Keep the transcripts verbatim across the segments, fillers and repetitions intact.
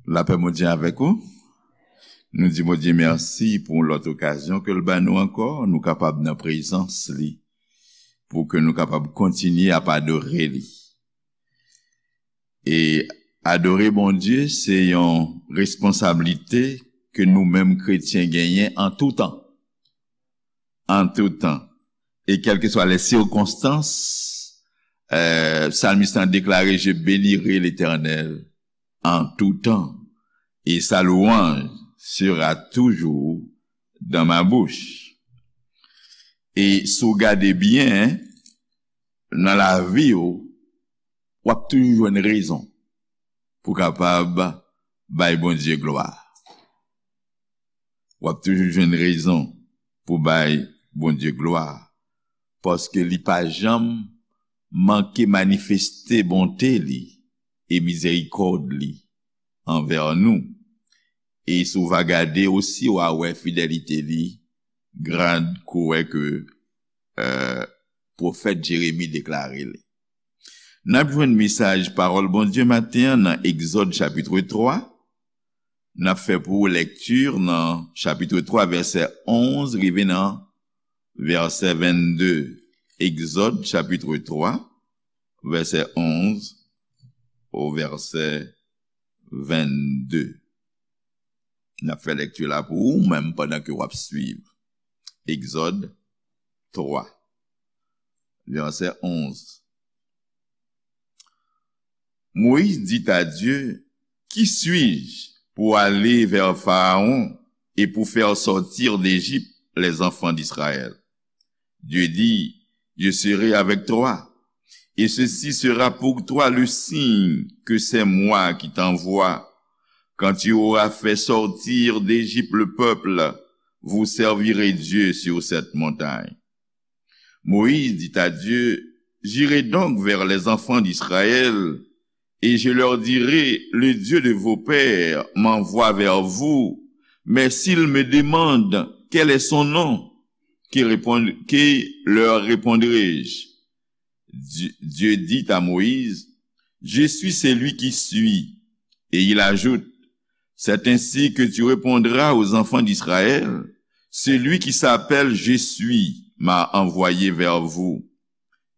Lapè Bondye avèk ou. Nou di Bondye mèsi pou lòt okazyon ke l ba nou ankò, nou kapab nan prezans li, pou ke nou kapab kontinye ap adore li. E adore Bondye, se yon responsablite ke nou menm kretyen genyen an tou tan. An tou tan. E kèlkeswa les sirkonstans, euh, psalmiste la déclaré, je bénirai l'Éternel en tout temps, et sa louange sera toujours dans ma bouche. E si w gade byen, nan lavi w, w ap toujou jwenn rezon pou kapab bay Bondye glwa. W ap toujou jwenn rezon pou bay Bondye glwa, paske li pa janm manke manifeste bonte li e mizerikòd li anvè nou. E si w va gade osi, w a wè fidelite li grand, kou wè ke, euh, pwofèt Jeremi deklare li. N ap jwenn mesaj pawòl Bondye maten an nan Egzòd chapit twa. N ap fè pou ou lèkti nan chapit twa, vèsè onz rive nan vèsè vennde. Egzòd chapit twa, vèsè onz o vèsè vennde. N ap fè lèkti la pou ou menm pandan ke w ap swiv. Egzòd twa, vèsè onz. Moïse dit à Dieu, qui suis-je pour aller vers Pharaon et pour faire sortir d'Égypte les enfants d'Israël ? Dieu dit, je serai avec toi, et ceci sera pour toi le signe que c'est moi qui t'envoie. Quand tu auras fait sortir d'Égypte le peuple, vous servirez Dieu sur cette montagne. Moïse dit à Dieu, j'irai donc vers les enfants d'Israël, et je leur dirai, le Dieu de vos pères m'envoie vers vous, mais s'ils me demandent quel est son nom, que répond-, que leur répondrai-je ? Dieu, Dieu dit à Moïse, je suis celui qui suis. Et il ajoute, c'est ainsi que tu répondras aux enfants d'Israël, celui qui s'appelle Je suis m'a envoyé vers vous.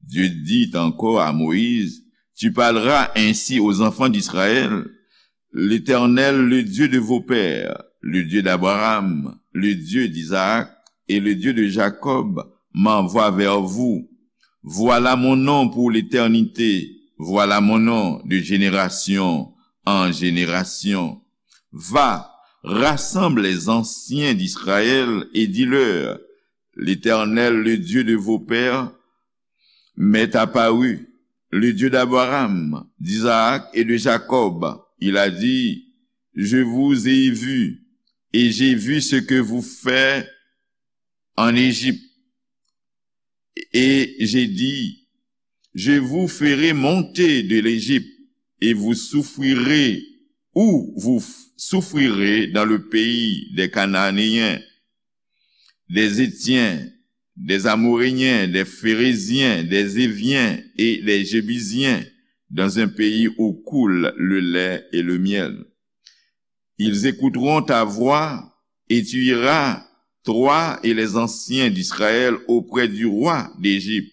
Dieu dit encore à Moïse, tu parleras ainsi aux enfants d'Israël, l'Éternel, le Dieu de vos pères, le Dieu d'Abraham, le Dieu d'Isaac et le Dieu de Jacob m'envoie vers vous. Voilà mon nom pour l'éternité, voilà mon nom de génération en génération. Va, rassemble les anciens d'Israël et dis-leur, l'Éternel, le Dieu de vos pères, m'est apparu, le Dieu d'Abraham, d'Isaac et de Jacob. Il a dit, je vous ai vu, et j'ai vu ce que vous faites en Égypte. Et j'ai dit, je vous ferai monter de l'Égypte, et vous souffrirez, ou vous f-, souffrirez dans le pays des Cananéens, des Hétiens, des Amoréens, des Phéréziens, des Éviens et des Jébusiens, dans un pays où coule le lait et le miel. Ils écouteront ta voix, et tu iras, toi et les anciens d'Israël, auprès du roi d'Égypte,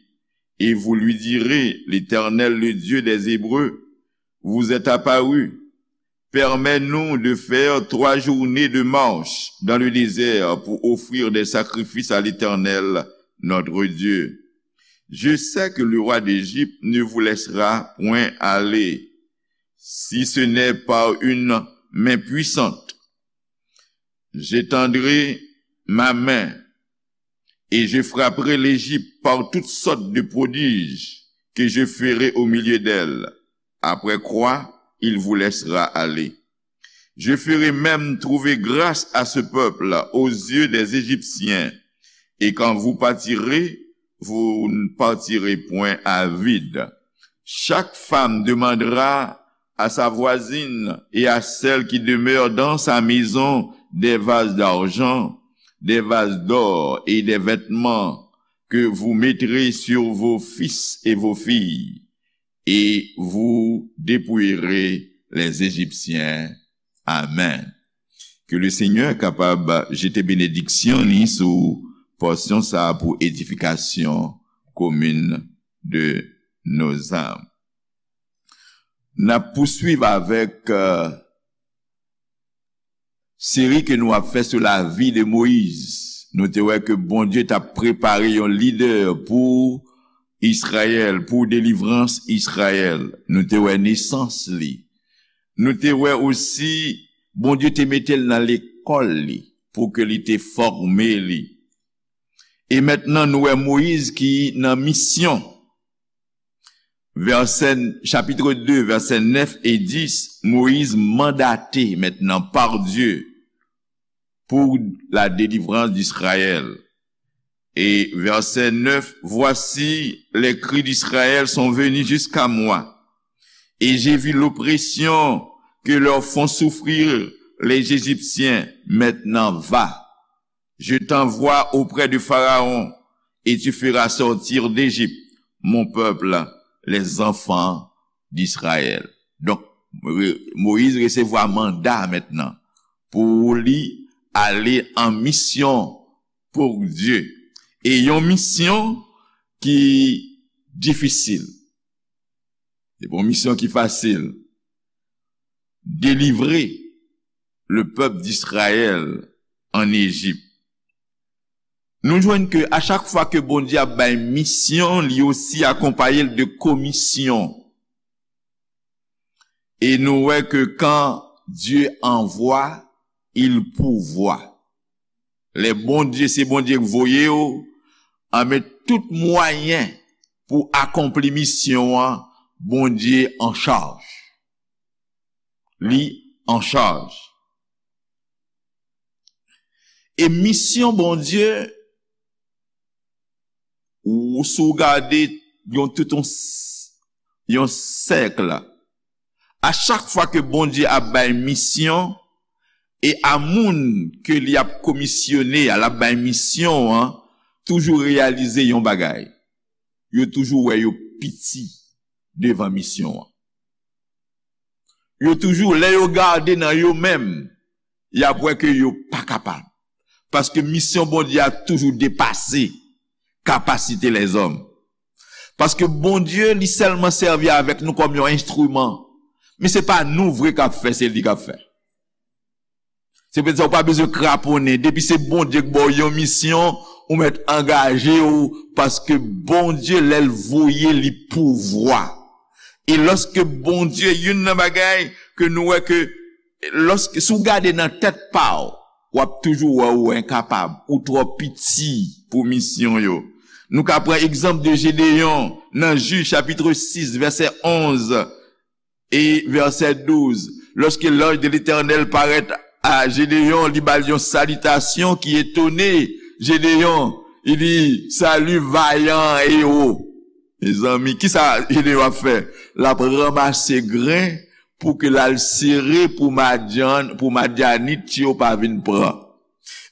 et vous lui direz, l'Éternel, le Dieu des Hébreux, vous est apparu. Permets-nous de faire trois journées de marche dans le désert pour offrir des sacrifices à l'Éternel, notre Dieu. Je sais que le roi d'Égypte ne vous laissera point aller, si ce n'est par une main puissante. J'étendrai ma main et je frapperai l'Égypte par toutes sortes de prodiges que je ferai au milieu d'elle, après quoi il vous laissera aller. Je ferai même trouver grâce à ce peuple aux yeux des Égyptiens, et quand vous partirez, vous ne partirez point à vide. Chaque femme demandera à sa voisine et à celle qui demeure dans sa maison des vases d'argent, des vases d'or et des vêtements que vous mettrez sur vos fils et vos filles, et vous dépouillerez les Égyptiens Amen. Ke le Senyè kapab jete benediksyon li sou pòsyon sa a pou edifikasyon komin de nos âmes. N ap pouswiv avèk, euh, seri ke nou ap fè sou lavi de Moyiz. Nou te wè ke Bondye t ap prepare yon lidè pou Izrayèl, pou delivrans Izrayèl. Nou te wè nesans li. Nou te wè osi, Bondye te mete l nan lekòl li pou ke li te fòme li. E mentnan, nou wè Moyiz ki nan misyon. Vèsè, chapit de, vèsè nèf e dis, Moyiz mandate mentnan par Dieu pour la délivrance d'Israël. Et verset neuf, voici, les cris d'Israël sont venus jusqu'à moi, et j'ai vu l'oppression que leur font souffrir les Égyptiens. Maintenant va, je t'envoie auprès de Pharaon, et tu feras sortir d'Égypte mon peuple, les enfants d'Israël. Donk, Re-, Moyiz resevwa manda mentnan pou li ale an misyon pou Dye. E yon misyon ki difisil. Se pa yon misyon ki fasil. Délivrer le peuple d'Israël en Égypte. Nou jwenn ke a chak fwa ke Bondye ap bay misyon, li osi akonpaye l de komisyon. E nou wè ke quand Dieu envoie, il pourvoit. Lè Bondye, se Bondye k voye w, anben tout mwayen pou akonpli misyon an, Bondye an chaj. Li an chaj. E misyon Bondye, ou, si w gade yon tout yon, s-, yon sèk, a chak fwa ke Bondye ap bay misyon, e a moun ke li ap komisyone a, l ap bay misyon an, toujou reyalize yon bagay. Yo toujou wè yo piti devan misyon an. Yo toujou, lè yo gade nan yo menm, y ap wè ke yo pa kapab. Paske misyon Bondye a toujou depase kapasite lèzòm. Paske Bondye, li sèlman sèvi avèk nou kòm yon enstriman. Men se pa nou vre k ap fè, se li k ap fè. Se poutèt sa ou pa bezwen kraponnen. Depi se Bondye k ba w yon misyon, ou mèt angaje w, paske Bondye, lè l voye, li pouvwa. E lòske Bondye, youn nan bagay ke nou wè ke, lòske, si w gade nan tèt pa w, w ap toujou wè ou enkapab, ou twò piti pou misyon yo. Nou ka pran egzanp de Jedeyon nan Jij chapit sis, vèsè onz. E vèsè douz, lorsque l'ange de l'Éternel paraît à Gédéon, li ba l yon salitasyon ki etone Jedeyon. Li di, "Salut, vaillant héros." Mezanmi, kisa Jedeyon ap fè? L ap ranmase grenn pou ke l al sere pou Madyan, pou Madyanit yo pa vin pran.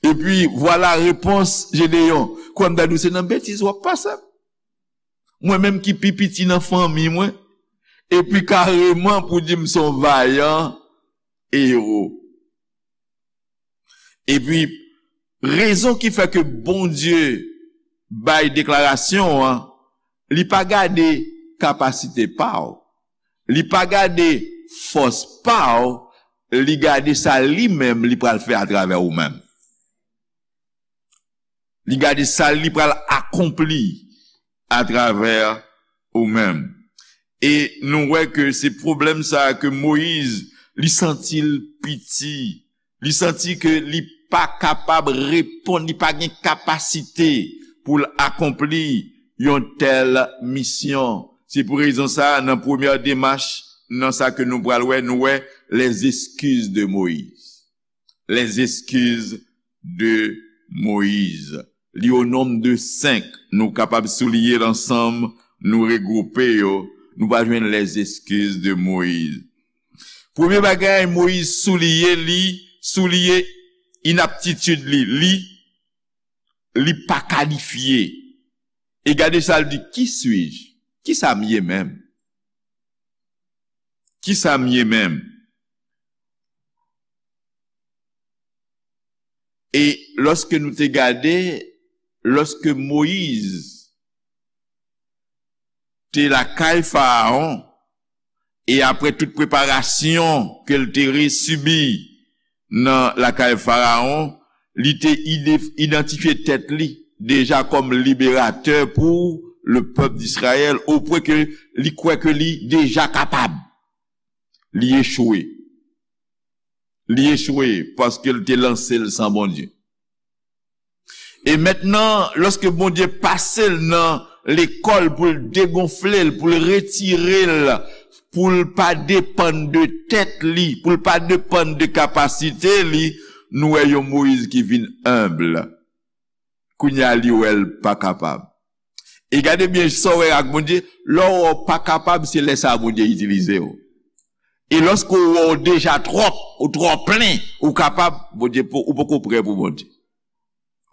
Epi, vwala repons Jedeyon. Kwè m ta di w se nan betiz w ap pase. Mwen menm ki pi piti nan fanmi mwen, epi kareman pou di m se yon vayan ewo. Epi, rezon ki fè ke Bondye bay deklarasyon an, li pa gade kapasite pa w, li pa gade fòs pa w, li gade sa li menm li pral fè atravè ou menm. Li gade sa li pral akonpli atravè ou menm. E nou wè ke se pwoblèm sa a ke Moyiz, li santi l piti. Li santi ke li pa kapab reponn, li pa gen kapasite pou l akonpli yon tèl misyon. Se pou rezon sa a, nan premyè demach, nan sa ke nou pral wè, nou wè les excuses de Moïse. Les excuses de Moïse. Li o nonb de senk. Nou kapab souliye l ansanm, nou regwoupe yo. Nou va jwenn les excuses de Moïse. Premye bagay, Moyiz souliye li, souliye inaptitid li. Li, li pa kalifye. E gade sa l di, "Qui suis-je? Kisa m ye menm? Kisa m ye menm?" E lòske nou te gade, lòske Moyiz te lakay Farawon, e apre tout preparasyon ke l te resibi nan lakay Farawon, li te ide-, idantifye tèt li deja kòm liberatè pou le pèp d'Izrayèl, opwen ke li kwè ke li deja kapab. Li echwe. Li echwe paske l te lanse l san Bondye. E mentnan, lòske Bondye pase l nan lekòl pou l degonfle l, pou l retire l, pou l pa depann de tèt li, pou l pa depann de kapasite li, nou wè yon Moyiz ki vin enb. Kounye a, li wè l pa kapab. E gade byen sa w wè ak Bondye, lè w wè w pa kapab, se lè sa a Bondye itilize w. E lòske w wè w deja twòp, ou twò plen, ou kapab, Bondye po-, ou poko prè pou Bondye.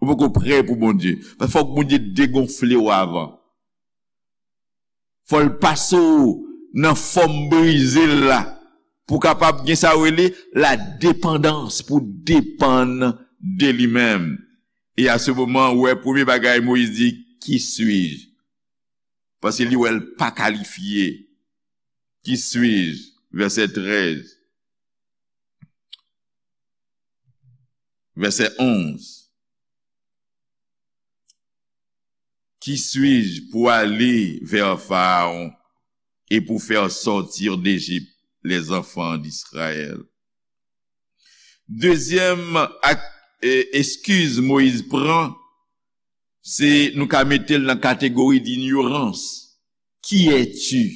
Ou poko prè pou Bondye. Paske fòk Bondye degonfle w avan. Fò l pase w nan fòm brize l la, pou w kapab gen sa yo rele la depandans, pou w depann de li menm. E a se moman, ou wè, premye bagay Moyiz di, Qui suis-je? Paske li wè l pa kalifye. Qui suis-je? Vèsè trèz. Vèsè onz. Qui suis-je pour aller vers Pharaon et pour faire sortir d'Égypte les enfants d'Israël? Dezyèm ak, e, eskiz Moyiz pran, se nou ka mete l nan kategori d'inyorans. Qui es-tu?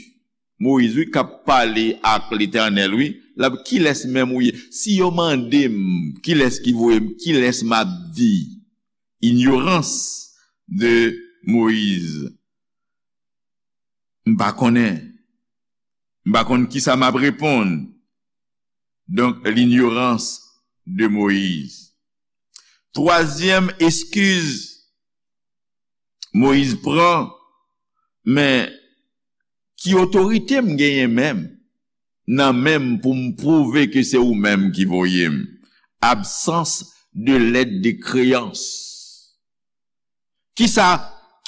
Moyiz, wi, k ap pale ak Letènèl, wi. L ap, kilès menm ou ye? Si yo mande m, kilès ki voye m? Kilès m ap di? Inyorans de Moyiz. M pa konnen. M pa konn kisa m ap reponn. Donk, l'inyorans de Moyiz. Twazyèm eskiz Moyiz pran, men ki otorite m genyen menm, nan men m pou m pwouve ke se ou menm ki voye m? Absans de lèt de kreyans. Kisa,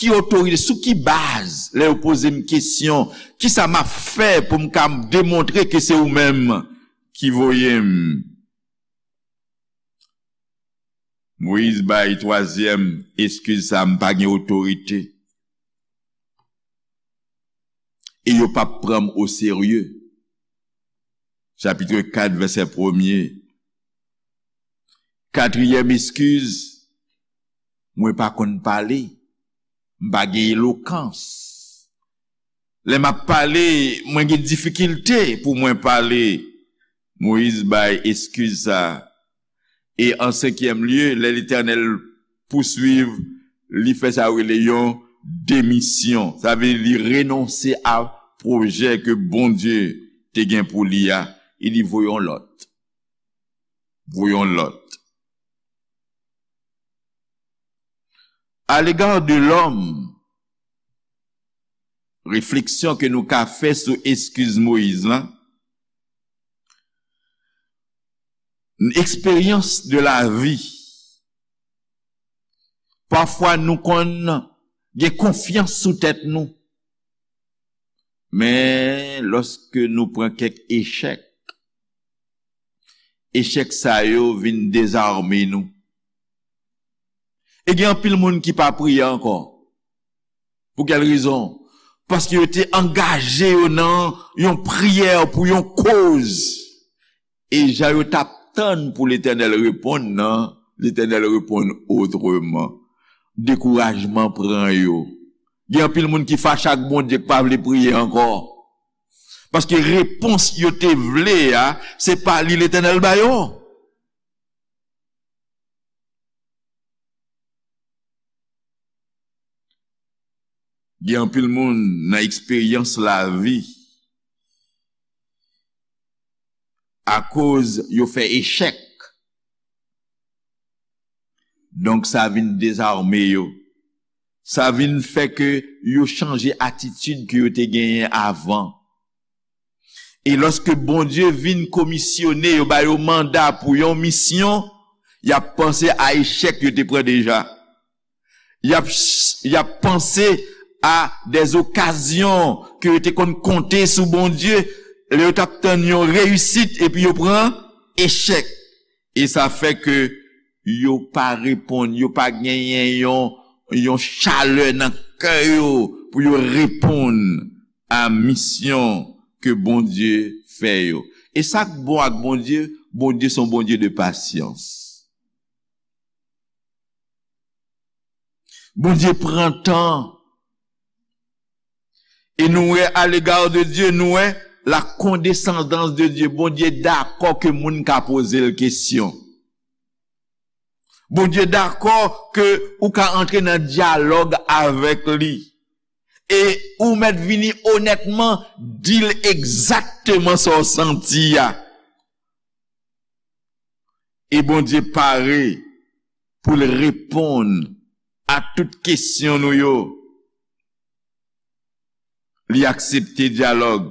ki otorite, sou ki baz, lè yo poze m kesyon, kisa m ap fè pou m ka demontre ke se ou menm ki voye m? Moyiz bay twazyèm eskiz sa, m pa gen otorite. E yo p ap pran m oserye. Chapit kat, vèsè premye. Katriyèm eskiz, mwen pa konn pale. M pa gen elokans. Lè m ap pale, mwen gen difikilte pou mwen pale. Moyiz bay eskiz sa. E an senkyèm lye, lè Letènèl pouswiv, li fè sa yo rele yon demisyon. Sa vle di li renonse a pwojè ke Bondye te gen pou li a. Li di, voye yon lòt. Voye yon lòt. À l'égard de l'homme, refleksyon ke nou ka fè sou eskiz Moyiz lan, eksperyans de la vi. Pafwa nou konn gen konfyans sou tèt nou. Men lòske nou pran kèk echèk, echèk sa yo vin dezame nou. E gen anpil moun ki pa priye ankò. Pou kèl rezon? Paske yo te angaje yo nan yon priyè pou yon koz. E jan yo t ap tann pou Letènèl reponn nan, Letènèl reponn otreman. Dekourajman pran yo. Gen anpil moun ki fache ak Bondye, ki pa vle priye ankò. Paske repons yo te vle a, se pa li Letènèl ba yo. Gen anpil moun nan eksperyans lavi, akoz yo fè echèk. Donk, sa vin dezame yo. Sa vin fè ke yo chanje atitid ke yo te genyen avan. E lòske Bondye vin komisyone yo, ba yo manda pou yon misyon, Y ap panse a echèk yo te pran deja. Y ap, y ap panse a des okazyon ke yo te konn konte sou Bondye, lè yo t ap tann yon reyisit, epi yo pran echèk. E sa fè ke yo pa reponn, yo pa genyen yon, yon chalè nan kè yo pou yo reponn a misyon ke Bondye fè yo. E sa k bon ak Bondye, Bondye se yon Bondye de pasyans. Bondye pran tan. E nou wè, à l'égard de Dieu, nou wè la condescendance de Dieu. Bondye dakò ke moun ka poze l kesyon. Bondye dakò ke ou ka antre nan dyalòg avèk li. E ou mèt vini onètman, di l egzakteman sa w santi a. E Bondye pare pou l reponn a tout kesyon nou yo. Li aksepte dyalòg.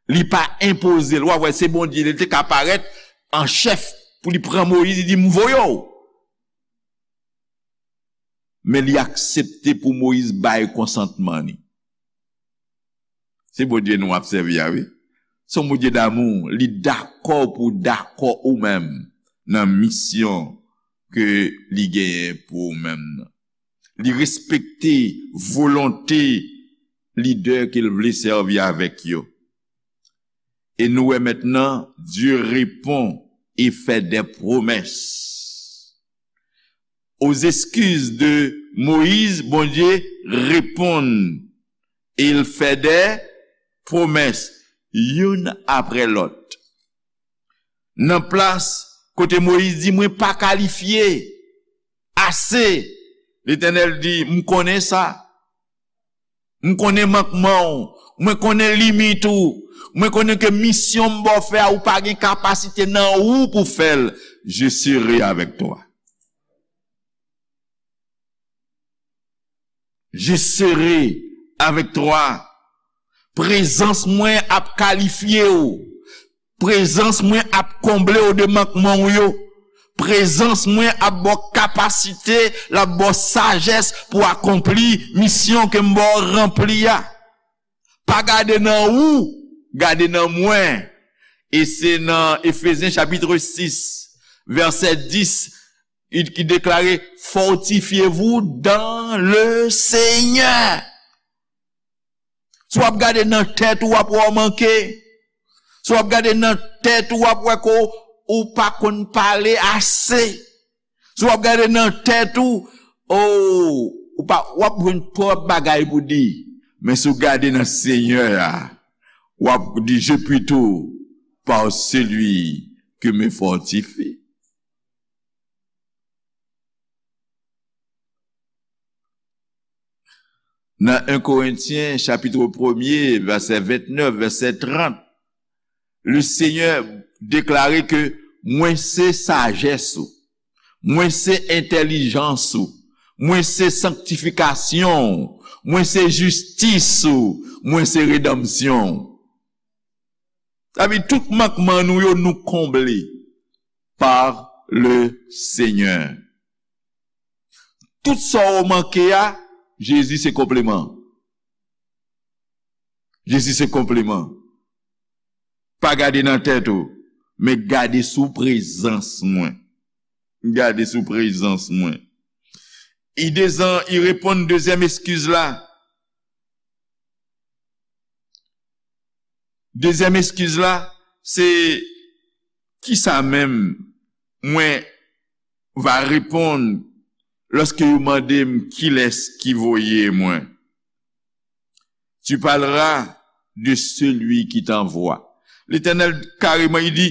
Li pa enpoze l. W ap wè, se Bondye, li te ka parèt an chèf pou li pran Moyiz, li di, "M voye w." Men li aksepte pou Moyiz bay konsantman li. Se Bondye nou ap sèvi a, wi. Se yon Bondye damou. Li dakò pou w dakò ou menm nan misyon ke li genyen pou ou menm nan. Li respekte volonte lidè ke l vle sèvi avèk yo. E nou wè mentnan, Dieu répond et fait des promesses. Aux excuses de Moïse, Bondye reponn e l fè de pwomès, youn apre lòt. Nan plas kote Moyiz di, "Mwen pa kalifye ase," Letènèl di, "M konnen sa." M konnen mankman w. Mwen konnen limit ou. Mwen konnen ke misyon m ba w fè a, ou pa gen kapasite nan ou pou fè l. Je serai avec toi. Je serai avec toi. Prezans mwen ap kalifye w. Prezans mwen ap konble w de mankman w yo. Prezans mwen ap ba w kapasite, l ap ba w sajès pou w akonpli misyon ke m ba w ranpli a. Pa gade nan ou, gade nan mwen. E se nan Efezyen chapit sis, vèsè dis, ki deklare, "Fortifiez-vous dans le Seigneur." Si w ap gade nan tèt ou, w ap wè w manke. Si w ap gade nan tèt ou, w ap wè ke w pa konn pale ase. Si w ap gade nan tèt ou, o, ou pa, w ap jwenn twòp bagay pou di. Men si w gade nan Senyè a, w ap di, "Je puis tout par celui qui me fortifie." Nan en Korentyen, chapit premye, vèsè vennèf, vèsè trant, le Senyè deklare ke mwen se sajès ou, mwen se entèlijans ou, mwen se sanktifikasyon ou, mwen se jistis ou, mwen se redanmsyon ou. Sa vle di tout mankman nou yo, nou konble par le Senyè. Tout sa w manke a, Jezi se konpleman. Jezi se konpleman. Pa gade nan tèt ou, men gade sou prezans mwen. Gade sou prezans mwen. I dezan, i reponn dezyèm eskiz la. Dezyèm eskiz la, se kisa menm mwen va reponn lòske yo mande m kilès ki voye mwen. Tu parleras de celui qui t'envoie. Letènèl kareman, li di,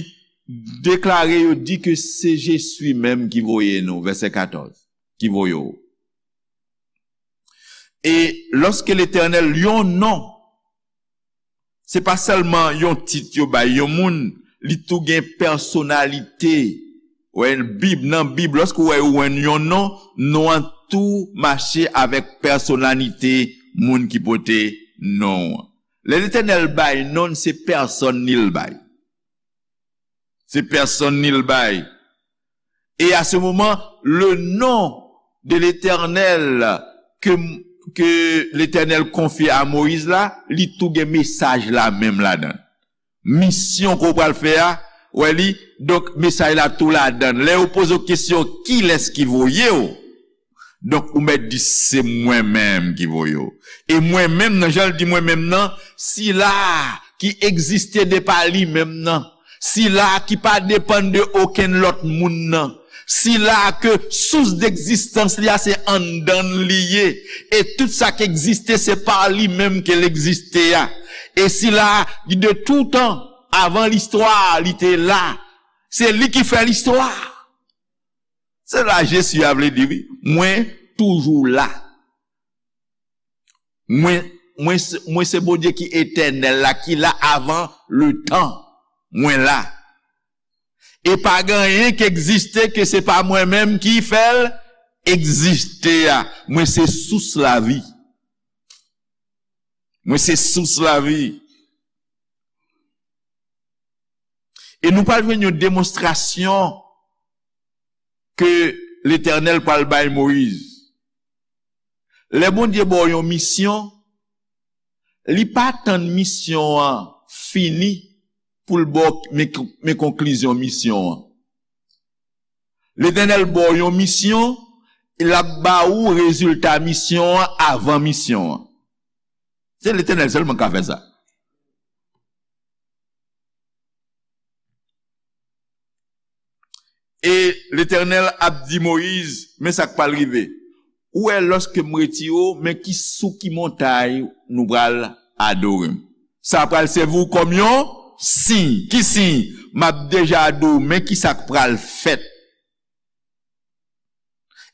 deklare yo, di ke se Jezi menm ki voye nou, vèsè katòz, ki voye w. E lòske Letènèl, yon non, se pa sèlman yon tit yo bay yon moun, li tou gen pèsonalite. Wè, Bib, nan Bib, lòske w wè yo jwenn yon non, non an tou mache avèk pèsonalite moun ki pote non an. Lè Letènèl bay non, se pèsòn li l bay. Se pèsòn li l bay. Et à ce moment, le nom de l'Éternel ke, ke Letènèl konfye a Moyiz la, li tou gen mesaj la menm ladan. Misyon ke w pral fè a, wè li, donk mesaj la tou ladan. Lè yo poze w kesyon, kilès ki voye w? Donk, ou mèt di, se mwen menm ki voye w. E mwen menm nan, jan l di mwen menm nan, sila ki egziste de pa li menm nan, sila ki pa depann de okenn lòt moun nan, sila ke sous degzistans li a se anndan l li ye, e tout sa k egziste se pa li menm ke l egziste a, e sila de toutan, avan listwa, li te la, se li ki fè listwa. Se la Jezi a vle di, wi, mwen toujou la. Mwen, mwen, se- mwen se Bondye ki etènèl la, ki la avan le tan. Mwen la. E pa gen anyen ki egziste ke se pa mwen menm ki fè l egziste a. Mwen se sous lavi. Mwen se sous lavi. E nou pral jwenn yon demonstrasyon ke Letènèl pral bay Moyiz. Lè Bondye ba w yon misyon, li pa tann misyon an fini pou l ba w men, men konklizyon misyon an. Letènèl ba w yon misyon, l ap ba ou rezilta misyon an avan misyon an. Se Letènèl sèlman k ka fè sa. E Letènèl ap di Moyiz, men sa k pral rive. Ou wè, lòske m retire w, men ki, sou ki montay nou pral adore m. Sa pral sèvi w kòm yon siy. Ki siy? M ap deja di w, men ki sa k pral fèt.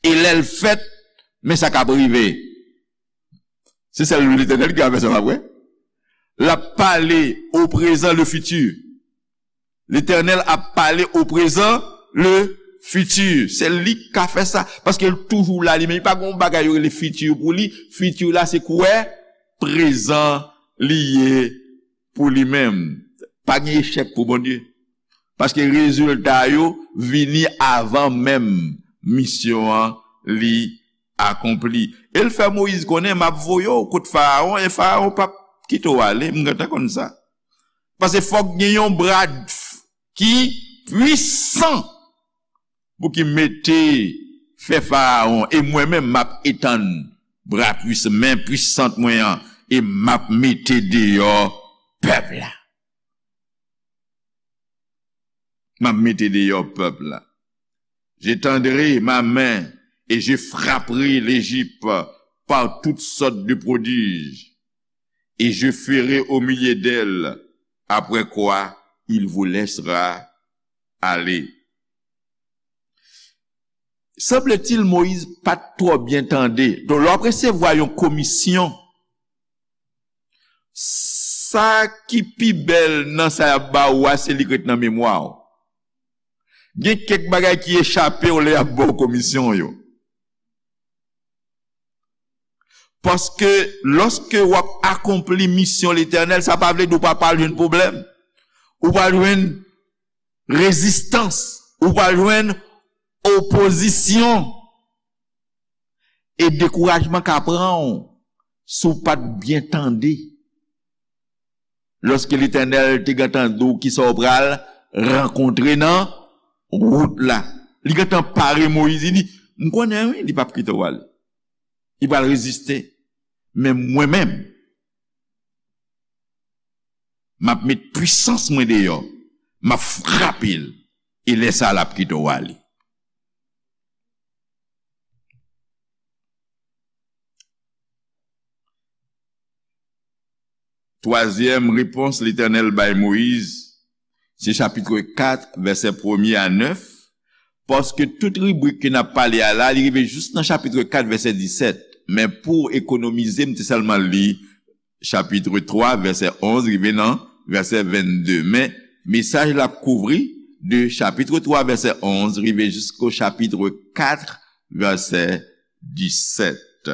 E lè l fèt, men sa k ap rive. Se sèl Letènèl ki ka fè sa, pa vre? L ap pale o prezan, le fiti. Letènèl ap pale o prezan, le fiti. Se li k ka fè sa. Paske l toujou la, li menm. Li pa gen yon bagay yo rele fiti pou li. Fiti la, se kwè prezan li ye pou li menm. Pa gen echèk pou Bondye. Paske rezilta yo vini avan menm misyon an li akonpli. E l fè Moyiz konnen, m ap voye w kot Farawon, e Farawon p ap kite w ale, m gentan konn sa. Paske fòk gen yon bra ki pwisan pou ki mete fè Farawon, e mwen menm m ap etann bra pwisan, men pwisant mwen an, e m ap mete deyò pèp la. M ap mete deyò pèp la. J'étendrai ma main et je frapperai l'Égypte par toutes sortes de prodiges, et je ferai au milieu d'elle, après quoi il vous laissera aller. Sanble-t-il, Moyiz pa t twò byen tande. Donk, lè w ap resevwa yon komisyon, sa ki pi bèl nan sa y ap ba ou a, se li k ret nan memwa w. Gen kèk bagay ki echape w lè y ap ba w komisyon yo. Paske lòske w ap akonpli misyon Letènèl, sa pa vle di w pa pral jwenn pwoblèm. Ou pral jwenn rezistans. Ou pral jwenn opozisyon. E dekourajman ka pran w si w pa t byen tande. Lòske Letènèl te gentan di w kisa w pral rankontre nan wout la. Li gentan pare Moyiz, li di, m konnen wi, li p ap kite w ale. Li pral reziste. Men mwen menm, m ap met pwisans mwen deyò, m ap frape l, e lè sa a, l ap kite w ale. Twazyèm repons Letènèl bay Moyiz, se chapit kat, vèsè premye a nèf, paske tout ribrik ke n ap pale a la, li rive jis nan chapit kat, vèsè disèt. Men pou ekonomize, m te sèlman li chapit twa, vèsè onz, rive nan vèsè vennde. Men mesaj la ap kouvri de chapit twa, vèsè onz, rive jisko chapit kat, vèsè disèt.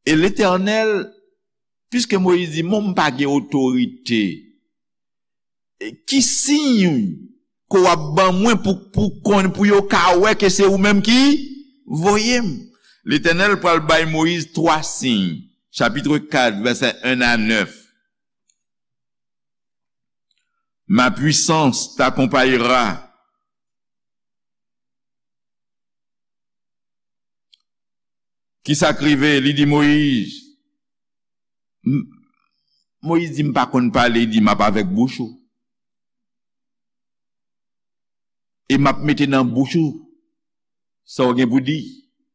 E Letènèl, piske Moyiz di, "Mwen, m pa gen otorite, e ki siy ke w ap ban mwen pou, pou konn, pou yo ka wè ke se ou menm ki voye m. Letènèl pral bay Moyiz twa siy, chapit kat, vèsè en a nèf. Ma puissance t'accompagnera. Kisa k rive? Li di Moyiz, m-, Moyiz di, "M pa konn pale." Li di, "M ap avèk bouch ou. E m ap mete nan bouch ou sa w gen pou di.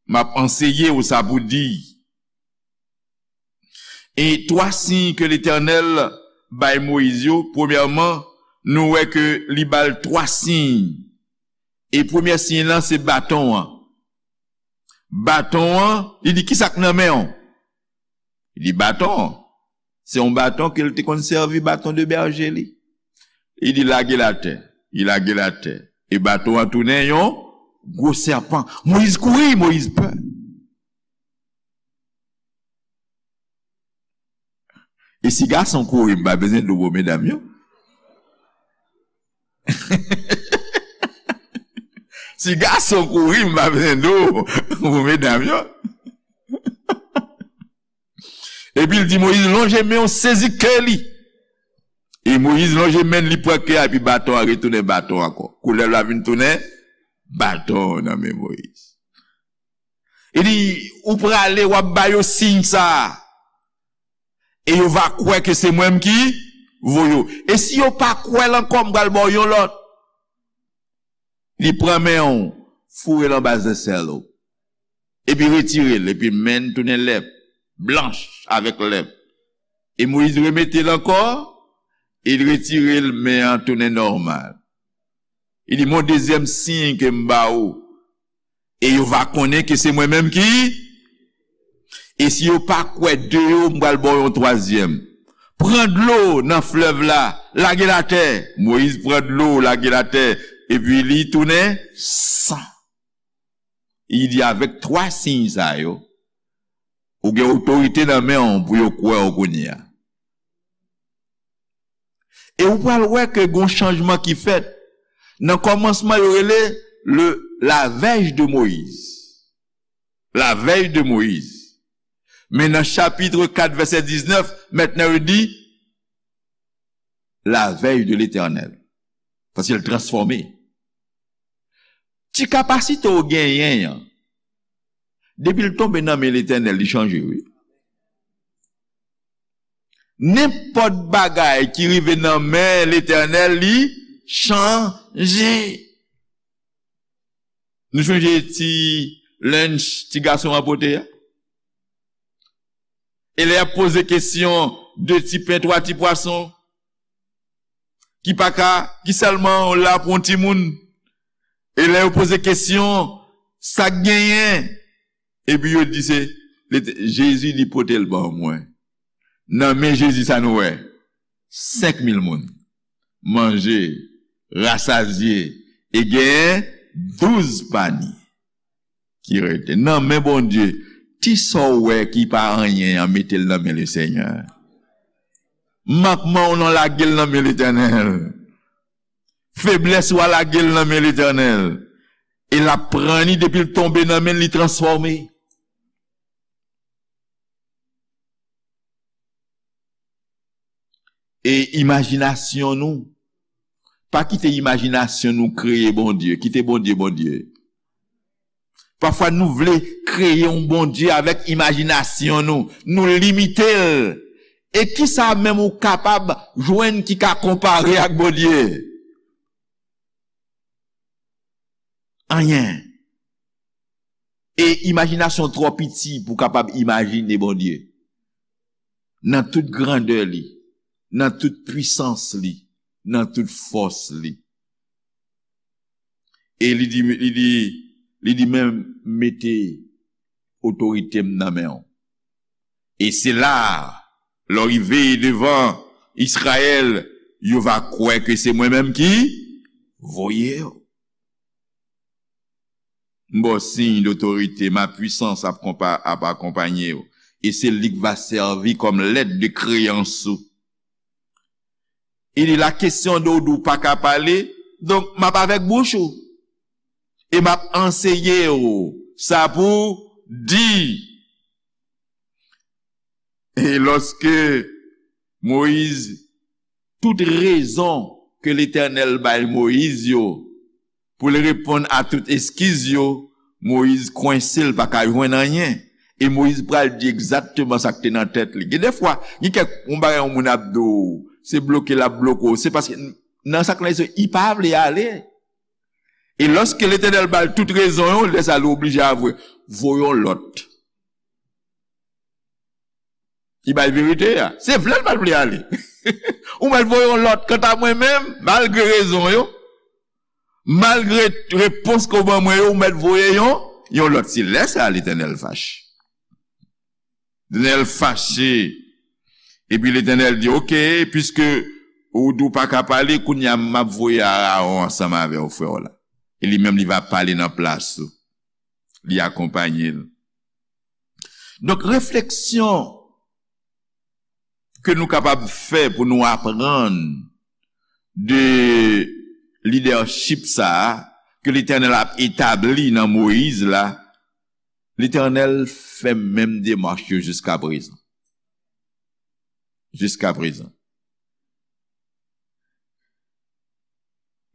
M ap anseye w sa pou di." E twa siy ke Letènèl bay Moyiz yo, premyèman, nou wè ke li ba l twa siy. E premyè siy lan, se baton an. Baton an, li di, "Kisa k nan men w?" Li di, "Baton an." Se yon baton ke l te konn sèvi, baton de bèje li. Li di, "Lage l atè." Li lage l atè. E baton an tounen yon gwo sèpan. Moyiz kouri, Moyiz pè. E si gason kouri, m pa bezwen di w pou medam yo. Si gason kouri, m pa bezwen di w pou medam yo. Epi l di Moyiz, "Lonje men w, sezi ke li." E Moyiz lonje men l, li pran ke a, epi baton an retounen baton ankò. Koulèv la vin tounen baton nan men Moyiz. Li di, "Ou prale, w ap ba yo siy sa a. E yo va kwè ke se mwen menm ki voye w. E si yo pa kwè l ankò, m pral ba w yon lòt." Li pran men w, foure l anba zesèl ou. Epi retire l, epi men l tounen lèp, blanch avèk lèp. E Moyiz remete l ankò, e l retire l, men an tounen nòmal. Li di, "Mon dezyèm siy ke m ba ou, e yo va konnen ke se mwen menm ki, e si yo pa kwè de yo, m pral ba w yon twazyèm. Pran dlo nan flèv la, lage l atè." Moyiz pran dlo, lage l atè, epi li tounen san. Li di, "Avèk twa siy sa yo, ou gen otorite nan men w pou yo kwè w kounye a." E ou pral wè ke gon chanjman ki fèt. Nan kòmansman, yo rele le, la veille de Moïse. La veille de Moïse. Men nan chapit kat, vèsè diznèf, mentnan yo di, la veille de l'Éternel. Paske l transfòme. Ti kapasite w genyen an, depi l tonbe nan men Letènèl, li chanje, wi. Nenpòt bagay ki rive nan men Letènèl, li chanje. Nou sonje ti lunch ti gason an pote a? E lè y ap poze kesyon, de ti pen, twa ti pwason, ki pa ka, ki sèlman la pou yon timoun. E lè yo poze kesyon, sa k genyen? Epi yo di se, Jezi di pote l ban mwen. Nan men Jezi sa nou wè, senk mil moun manje, rasazye, e genyen douz pani ki rete. Nan men Bondye, ti sa w wè ki pa anyen an, mete l nan men Lesenyè. Mankman w nan, lage l nan men Letènèl. Feblès ou a, lage l nan men Letènèl. E l ap pran li, depi l tonbe nan men l, li transfòme. E imajinasyon nou, pa kite imajinasyon nou kreye Bondye, kite Bondye Bondye. Pafwa nou vle kreye yon Bondye avèk imajinasyon nou, nou limite l. E kisa menm ou kapab jwenn ki ka konpare ak Bondye? Anyen. E imajinasyon twò piti pou w kapab imajine Bondye. Nan tout grandè li, nan tout pwisans li, nan tout fòs li. E li di, li di, li di, men mete otorite m nan men w. E se la, lè w rive devan Izrayèl, yo va kwè ke se mwen menm ki voye w. M ba w siy dotorite, ma puissance ap konpa-, ap akonpanye w. E se li k va sèvi kòm lèt de kreyans ou. Il dit, la kesyon de w di w pa ka pale, Donk, m ap avèk bouch ou. E m ap anseye w sa pou w di. E lòske Moyiz, tout rezon ke Letènèl bay Moyiz yo, pou l reponn a tout eskiz yo, Moyiz kwense, l pa ka jwenn anyen. E Moyiz pral di egzakteman sa k te nan tèt li. Gen de fwa, gen kèk, yon bagay yon moun ap di w, se bloke l ap bloke w, se paske nan sa k nan lespri, li pa vle ale. E lòske Letènèl ba l tout rezon yo, lè sa a li oblije avwe, voye yon lòt. Li bay verite a. Se vle l pa t vle ale. Ou mèt voye yon lòt. Kanta mwen menm, malgre rezon yo, malgre repons ke w ban mwen yo, ou mèt voye yon, yon lòt. Se lè sa a Letènèl fache. Letènèl fache. Epi Letènèl di, oke, piske ou di w pa ka pale, kounye a m ap voye Arawon ansanm avè w, frè w la. E li menm, li va pale nan plas ou. Li akonpanye l. Donk, refleksyon ke nou kapab fè pou nou aprann de lidèchip sa a ke Letènèl ap etabli nan Moyiz la, Letènèl fè menm demach yo jiska prezan. Jiska prezan.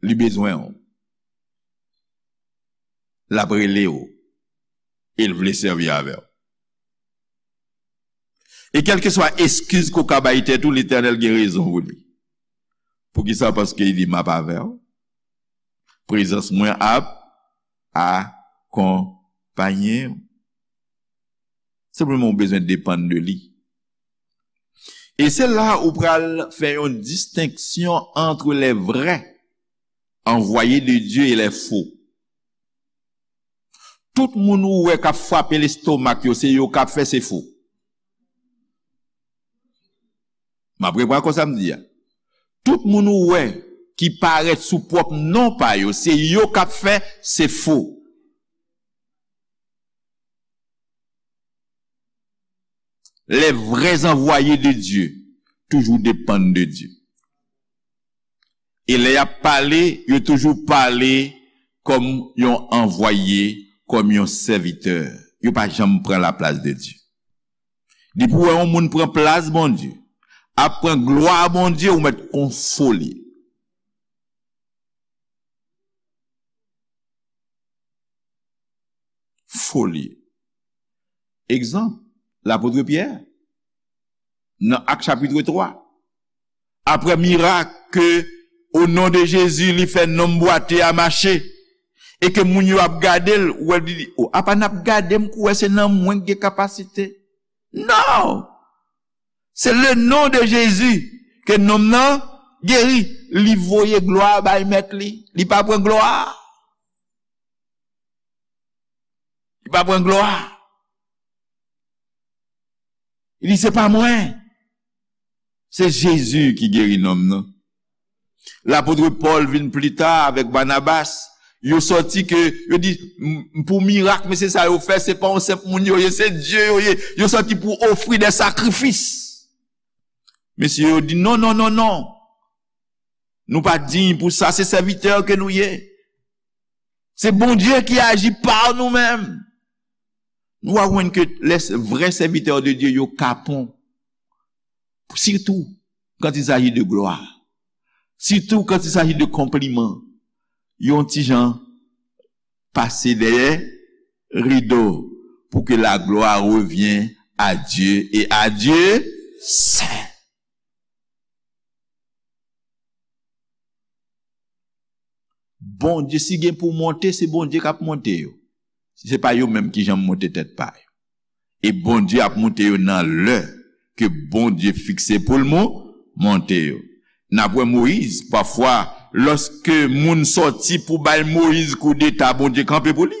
Li bezwen w. L ap rele w. E l vle sèvi avè w. E kèlkeswa eskiz ke w ka bay tèt ou, Letènèl gen rezon pou li. Poukisa? Paske li di, m ap avè w. Prezans mwen ap akonpaye w. Senpleman, ou bezwen depann de li. E se la ou pral fè yon distenksyon entre les vrais envoyés de Dieu et les faux. Tout moun ou wè k ap frape lestomak yo, se yo k ap fè, se fo. M ap reprann kòb sa m di a. Tout moun ou wè ki parèt sou pwòp non pa yo, se yo k ap fè, se fo. Les vrais envoyés de Dieu toujou depann de Dye. E lè y ap pale, yo toujou pale kòm yon anvwaye, kòm yon sèvitè. Yo pa janm pran laplas de Dye. Depi w wè yon moun pran plas Bondye, ap pran glwa Bondye, ou mèt konfole. Foli. Egzanp, lapot Pyè, nan Ak chapit twa. Aprè mirak ke, o non de Jezi, li fè nonm bwate a mache, e ke moun yo ap gade l, ou wè li di, o, apa n ap gade m kou wè se nan mwen k gen kapasite? Non! Se le non de Jezi ke nonm nan geri. Li voye glwa bay mèt li. Li pa pran glwa. Li pa pran glwa. Li di, se pa mwen. Se Jezi ki geri nonm nan. Lapot Pòl vin pli ta avèk Banabas. Yo sòti ke, yo di, m, pou mirak, mesye sa yo fè, se pa yon senp moun yo ye, se Dye yo ye. Yo sòti pou ofri de sakrifis. Mesye yo di, non, non, non, non. Nou pa diy pou sa, se sèvitè ke nou ye. Se Bondye ki aji pa nou menm. Nou va jwenn ke les vrais serviteurs de Dieu, yo kapon. Surtout quand il s'agit de gloire. Surtout quand il s'agit de konpliman. Yo yon ti jan pase dèyè rido pour que la gloire revienne à Dieu et à Dieu seul. Bondye, si gen pou monte, se Bondye k ap monte yo. Se pa yo menm ki janm monte tèt pa yo. E Bondye ap monte yo nan lè ke Bondye fikse pou l mon-, monte yo. N ap wè Moyiz, pafwa, lòske moun sòti pou bay Moyiz koudeta, Bondye kanpe pou li.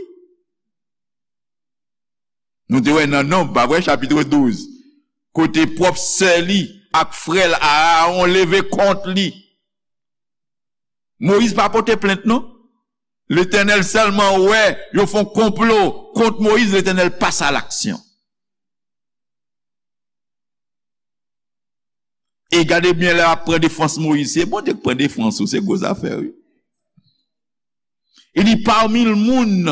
Nou te wè nan Nonb, pa vre, chapit douz, kote pwòp sè li ak frè l Arawon leve kont li. Moyiz pa pote plent, non. Letènèl sèlman wè yo fè yon konplo kont Moyiz, Letènèl pase a laksyon. E gade byen lè y ap pran defans Moyiz, se Bondye k pran defans ou, se gwo zafè, wi. Il dit, parmi le moun,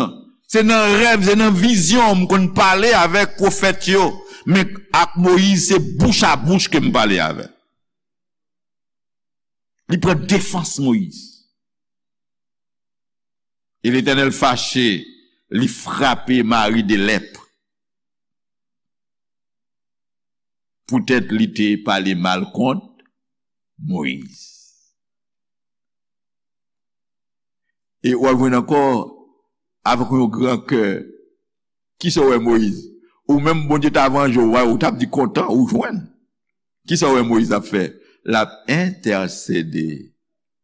se nan rèv, se nan vizyon, m konn pale avèk pwofèt yo, men ak Moyiz, se bouch a bouch ke m pale avè l. Li pran defans Moyiz. E Letènèl fache, li frape Mari de lèp. Poutèt li te pale mal kont Moyiz. E w ap jwenn ankò, avèk yon gran kè, kisa w wè Moyiz? Ou menm, Bondye ta vanje w, ou t ap di kontan, ou jwenn. Kisa w wè Moyiz ap fè? L ap entèsede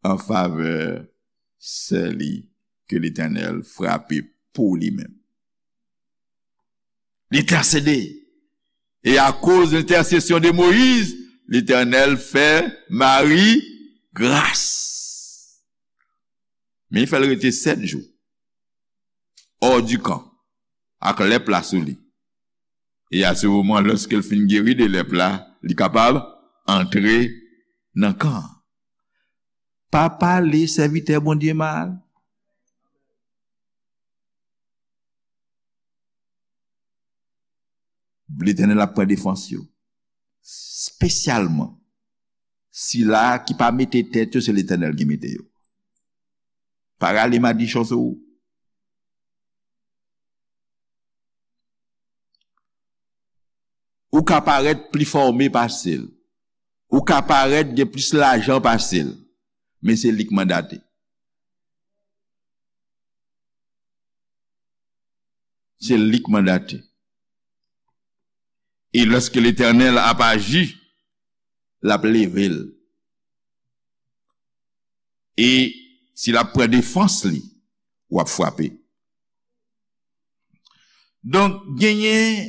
an favè sè li ke Letènèl frape pou li menm. Li entèsede. E akoz lentèsesyon de Moyiz, Letènèl fè Mari gras. Men li fè l rete sèt jou. Hors du camp. Ak lèp la sou li. E a se moman, lòske l fin geri de lèp la, li kapab antre nan kan an. Pa pale sèvitè Bondye mal. Letènèl ap pran defans yo. Espesyalman, sila ki pa mete tèt yo, se Letènèl ki mete yo. Pa rale madichon sou ou. Ou ka parèt pli fòme pase l. Ou ka parèt gen plis lajan pase l. Men se li k mandate. Se li k mandate. E lòske Letènèl ap aji, l ap leve l. E si l ap pran defans li, w ap frape. Donk, genyen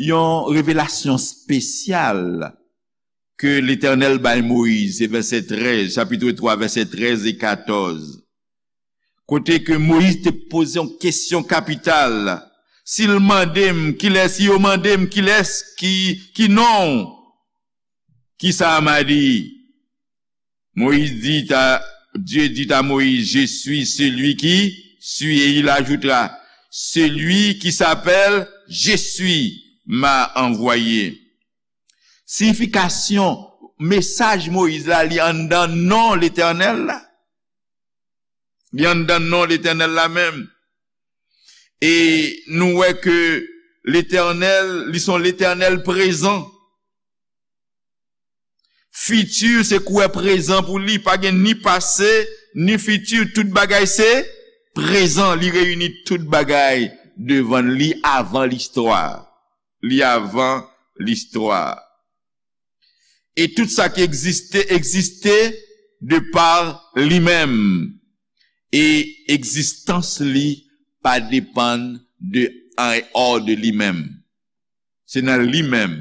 yon revelasyon espesyal ke Letènèl bay Moyiz, se vèsè trèz, chapit twa, vèsè trèz e katòz. Kote ke Moyiz te poze yon kesyon kapital. Si l mande m, kilès, si yo mande m, kilès ki, ki non w? Kisa m a di? Moïse dit à, Dieu dit à Moïse, je suis celui qui suis, et il ajoutera, celui qui s'appelle je suis m'a envoyé. Siyifikasyon mesaj Moyiz la, li anndan non Letènèl la. Li anndan non Letènèl la menm. E nou wè ke Letènèl, li se yon Letènèl prezan. Fiti se kwè prezan pou li, pa gen ni pase, ni fiti, tout bagay se prezan. Li reyini tout bagay devan li avan listwa. Li avan listwa. E tout sa ki egziste, egziste de pa li menm. E egzistans li pa depann de, an dehors de li menm. Se nan li menm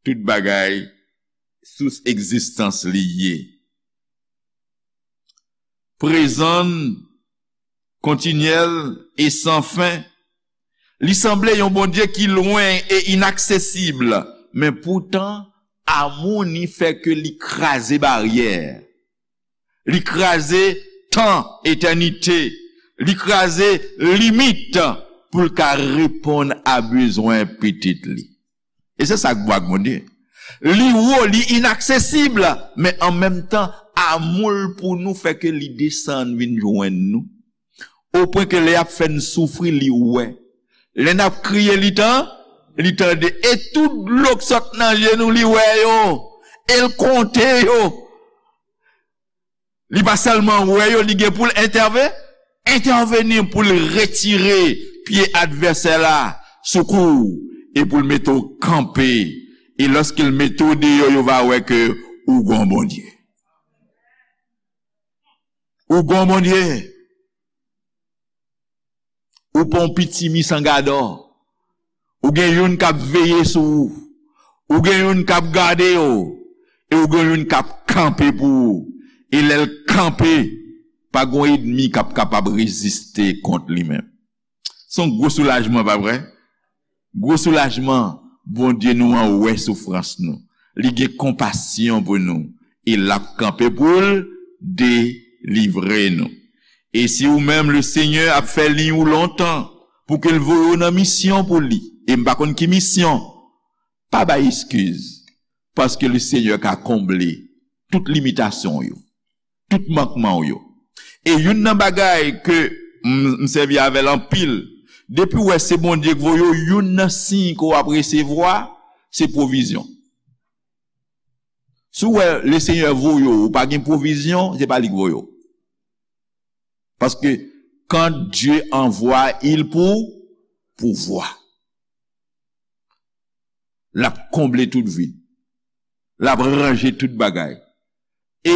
tout bagay, sous egzistans li ye. Prezan, kontinyèl e san fen. Li sanble yon Bondye ki lwen e inaksesib, men poutan, amou ni fè ke li kraze baryè. Li kraze tan, etènite. Li kraze limit pou l ka reponn a bezwen pitit li. E se sa k bon ak Bondye. Li wo, li inaksesib, men an menm tan, amou l pou nou fè ke li desann vin jwenn nou. Opwen ke lè y ap fè n soufri, li wè. Lè n ap kriye, li tan, li tande. E tout dlo k sot nan je nou, li wè yo. E l konte yo. Li pa sèlman wè yo, li gen pou l entève-, entèveni pou l retire pye advèsè la sou kou w e pou l mete w kanpe. E lòske l mete w deyò, yo va wè ke ou gon Bondye. Ou gon Bondye. Ou pa yon pitimi san gadò. Ou gen youn k ap veye sou ou. Ou gen youn k ap gade w. E ou gen youn k ap kanpe pou ou. E lè l kanpe, pa gen yon ènmi k ap kapab reziste kont li menm. Se yon gwo soulajman, pa vre? Gwo soulajman, Bondye nou an wè soufrans nou. Li gen konpasyon pou nou. E l ap kanpe pou l delivre nou. E si ou menm, Lesenyè ap fè liy ou lontan pou ke l voye w nan misyon pou li, e m pa konn ki misyon, pa bay eskiz, paske Lesenyè ka konble tout limitasyon w yo, tout mankman w yo. E youn nan bagay ke m, m sèvi avè l anpil, depi w wè se Bondye k voye w, youn nan siy ke w ap resevwa, se pwovizyon. Si w wè Lesenyè voye w, ou pa gen pwovizyon, se pa li k voye w. Paske quand Dieu envoie, il pou, pourvoir. L ap konble tout vid. L ap ranje tout bagay. E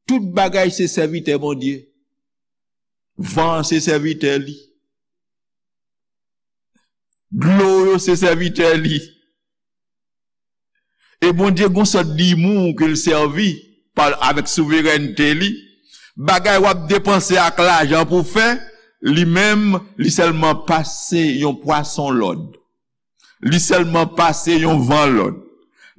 tout bagay se sèvitè Bondye. Van an se sèvitè li. Dlo yo se sèvitè li. E Bondye gon sòt dimou ke l sèvi pa, avèk souverènte li. Bagay w ap depanse ak lajan pou fè, li menm, li sèlman pase yon pwason lòd. Li sèlman pase yon van lòd.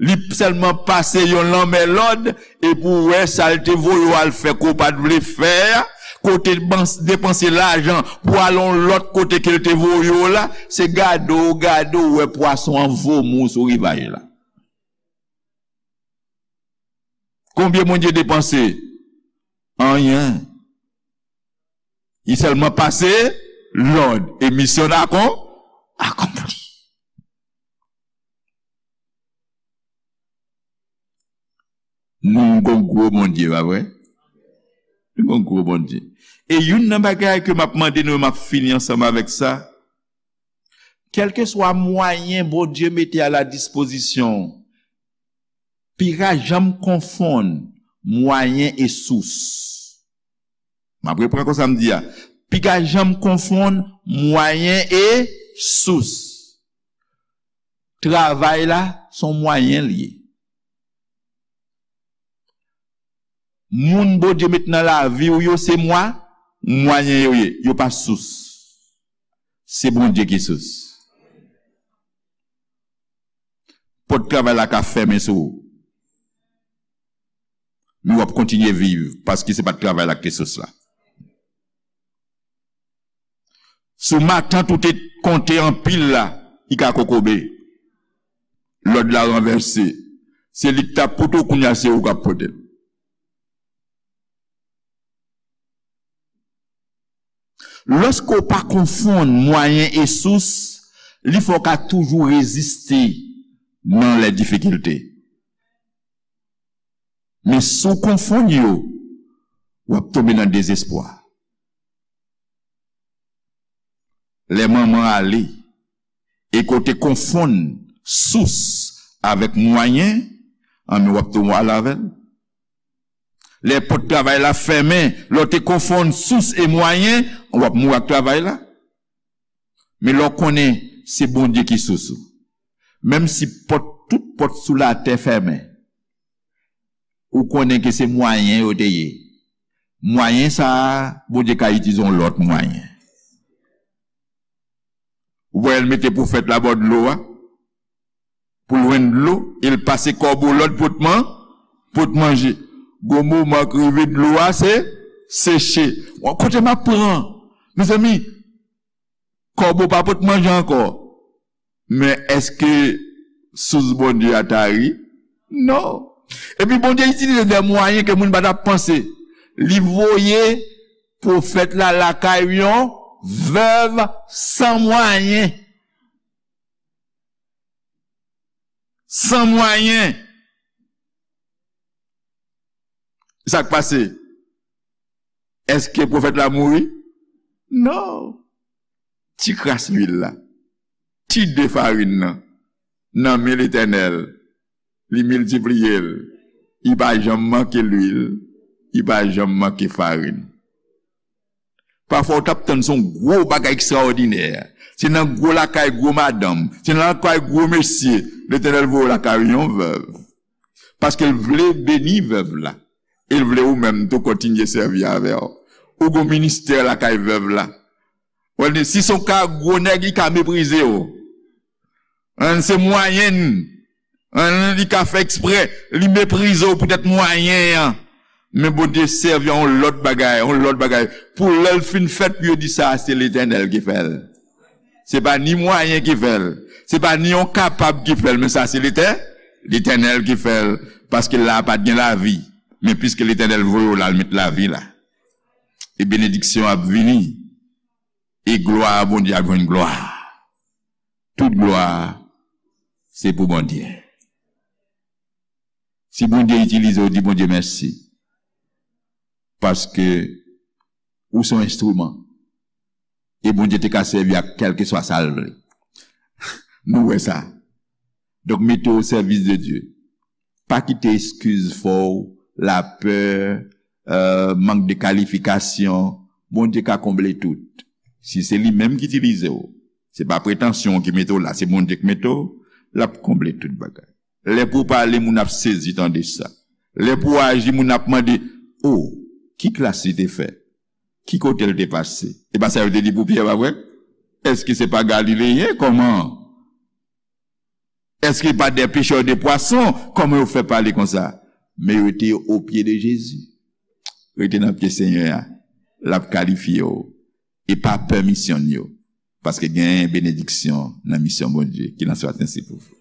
Li sèlman pase yon lanmè lòd, e pou w wè sa l te voye w al fè ke w pa t vle fè a, ke w te bans-, depanse lajan pou al yon lòt kote ke l te voye w la, se gade w, gade w wè pwason an vomou sou rivaj la. Konbyen Bondye depanse? Anyen. Li sèlman pase lòd e misyon akon-, akonpli. Nou gon gwo Bondye, pa vre? Nou gon gwo Bondye. E youn nan bagay ke m ap mande nou, e m ap fini ansanm avèk sa, kèlkeswa mwayen Bondye mete a la dispozisyon w, piga janm konfonn mwayen e sous. M ap reprann konsa m di a. Piga janm konfonn mwayen e sous. Travay la, se yon mwayen l ye. Moun Bondye met nan lavi w yo, se mwa-, mwayen yo ye. Yo pa sous. Se Bondye ki sous. Pòt travay la ka fèmen sou ou. Men w ap kontinye viv, paske se pa t travay la ki te sous la. Sou matant ou te konte anpil la, li ka kokobe. Lòd la ranvèse. Se li k t ap pote w, kounye a se ou k ap pote l. Lòske w pa konfonn mwayen e sous, li fè w ka toujou reziste nan lè difikilte. Men si w konfonn yo, w ap tonbe nan dezespwa. Lè manman ale, e ke w te konfonn sous avèk mwayen, anben w ap tou mouri avè l. Lè pòt travay la fèmen, lè w te konfonn sous e mwayen, w ap mouri ak travay la. Men lè w konnen se Bondye ki sous ou, menm si pòt, tout pòt sou latè fèmen, ou konnen ke se mwayen yo te ye. Mwayen sa a, Bondye ka itilize yon lòt mwayen. Ou wè l mete pwofèt la bò dlo a, pou l jwenn dlo, e l pase kòbo lòd pot man-, pot manje. Gon moman k rive dlo a se seche. Bon, kote m ap pran? Mezanmi, kòbo pa pot manje ankò. Men èske sous Bondye a tari? Non. Epi Bondye itilize de mwayen ke moun pa t ap panse. Li voye pwofèt la lakay yon vèv san mwayen. San mwayen. Sa k pase? Èske pwofèt la mouri? Non. Ti kras luil la, ti de farin nan, nan men Letènèl, li miltipliye l. Li pa janm manke luil, li pa janm manke farin. Pafwa, w t ap tann se yon gwo bagay ekstraòdinè. Se nan gwo lakay gwo madanm, se nan lakay gwo mesye, Letènèl voye w lakay yon vèv. Paske l vle beni vèv la. E l vle ou menm tou kontinye sèvi avè w. Ou gon ministè lakay vèv la. Ou wè, si se yon ka gwo nèg, li ka meprize w. An, se mwayen l. An, li ka fè eksprè, li meprize w poutèt mwayen an. Men Bondye sèvi a yon lòt bagay, yon lòt bagay. Pou lè l fin fèt, pou yo di sa, se Letènèl ki fè l. Se pa ni mwayen ki fè l. Se pa ni yon kapab ki fè l, men sa se Letè-, Letènèl ki fè l. Paske la pa t gen lavi. Men piske Letènèl voye w la, l met lavi la. E benediksyon ap vini. E glwa a Bondye ap jwenn glwa. Tout glwa se pou Bondye. Si Bondye itilize w, di Bondye mèsi. Paske ou se yon enstriman. E Bondye te ka sèvi ak kèlkeswa sa l vle. Nou wè sa. Donk, mete w o sèvis de Dye. Pa kite eskiz fè w, lapè, euh, mank de kalifikasyon. Bondye ka konble tout. Si se li menm ki itilize w, se pa pretansyon w ki mete w la, se Bondye ki mete w, l ap konble tout bagay. Lè pou w pale, moun ap sezi tande sa. Lè pou w aji, moun ap mande, "O, ki klas li te fè? Ki kote l te pase?" E pa sa yo te di pou Pyè, pa vre? Èske se pa Galileyen? Kòman? Èske pa de pechè de pwason? Kòman yo fè pale konsa? Men yo te o pye de Jezi. Rete nan pye Senyè a. L ap kalifye w. E pa pè misyon yo. Paske gen benediksyon nan misyon Bondye ki nan swa sensi pou vou.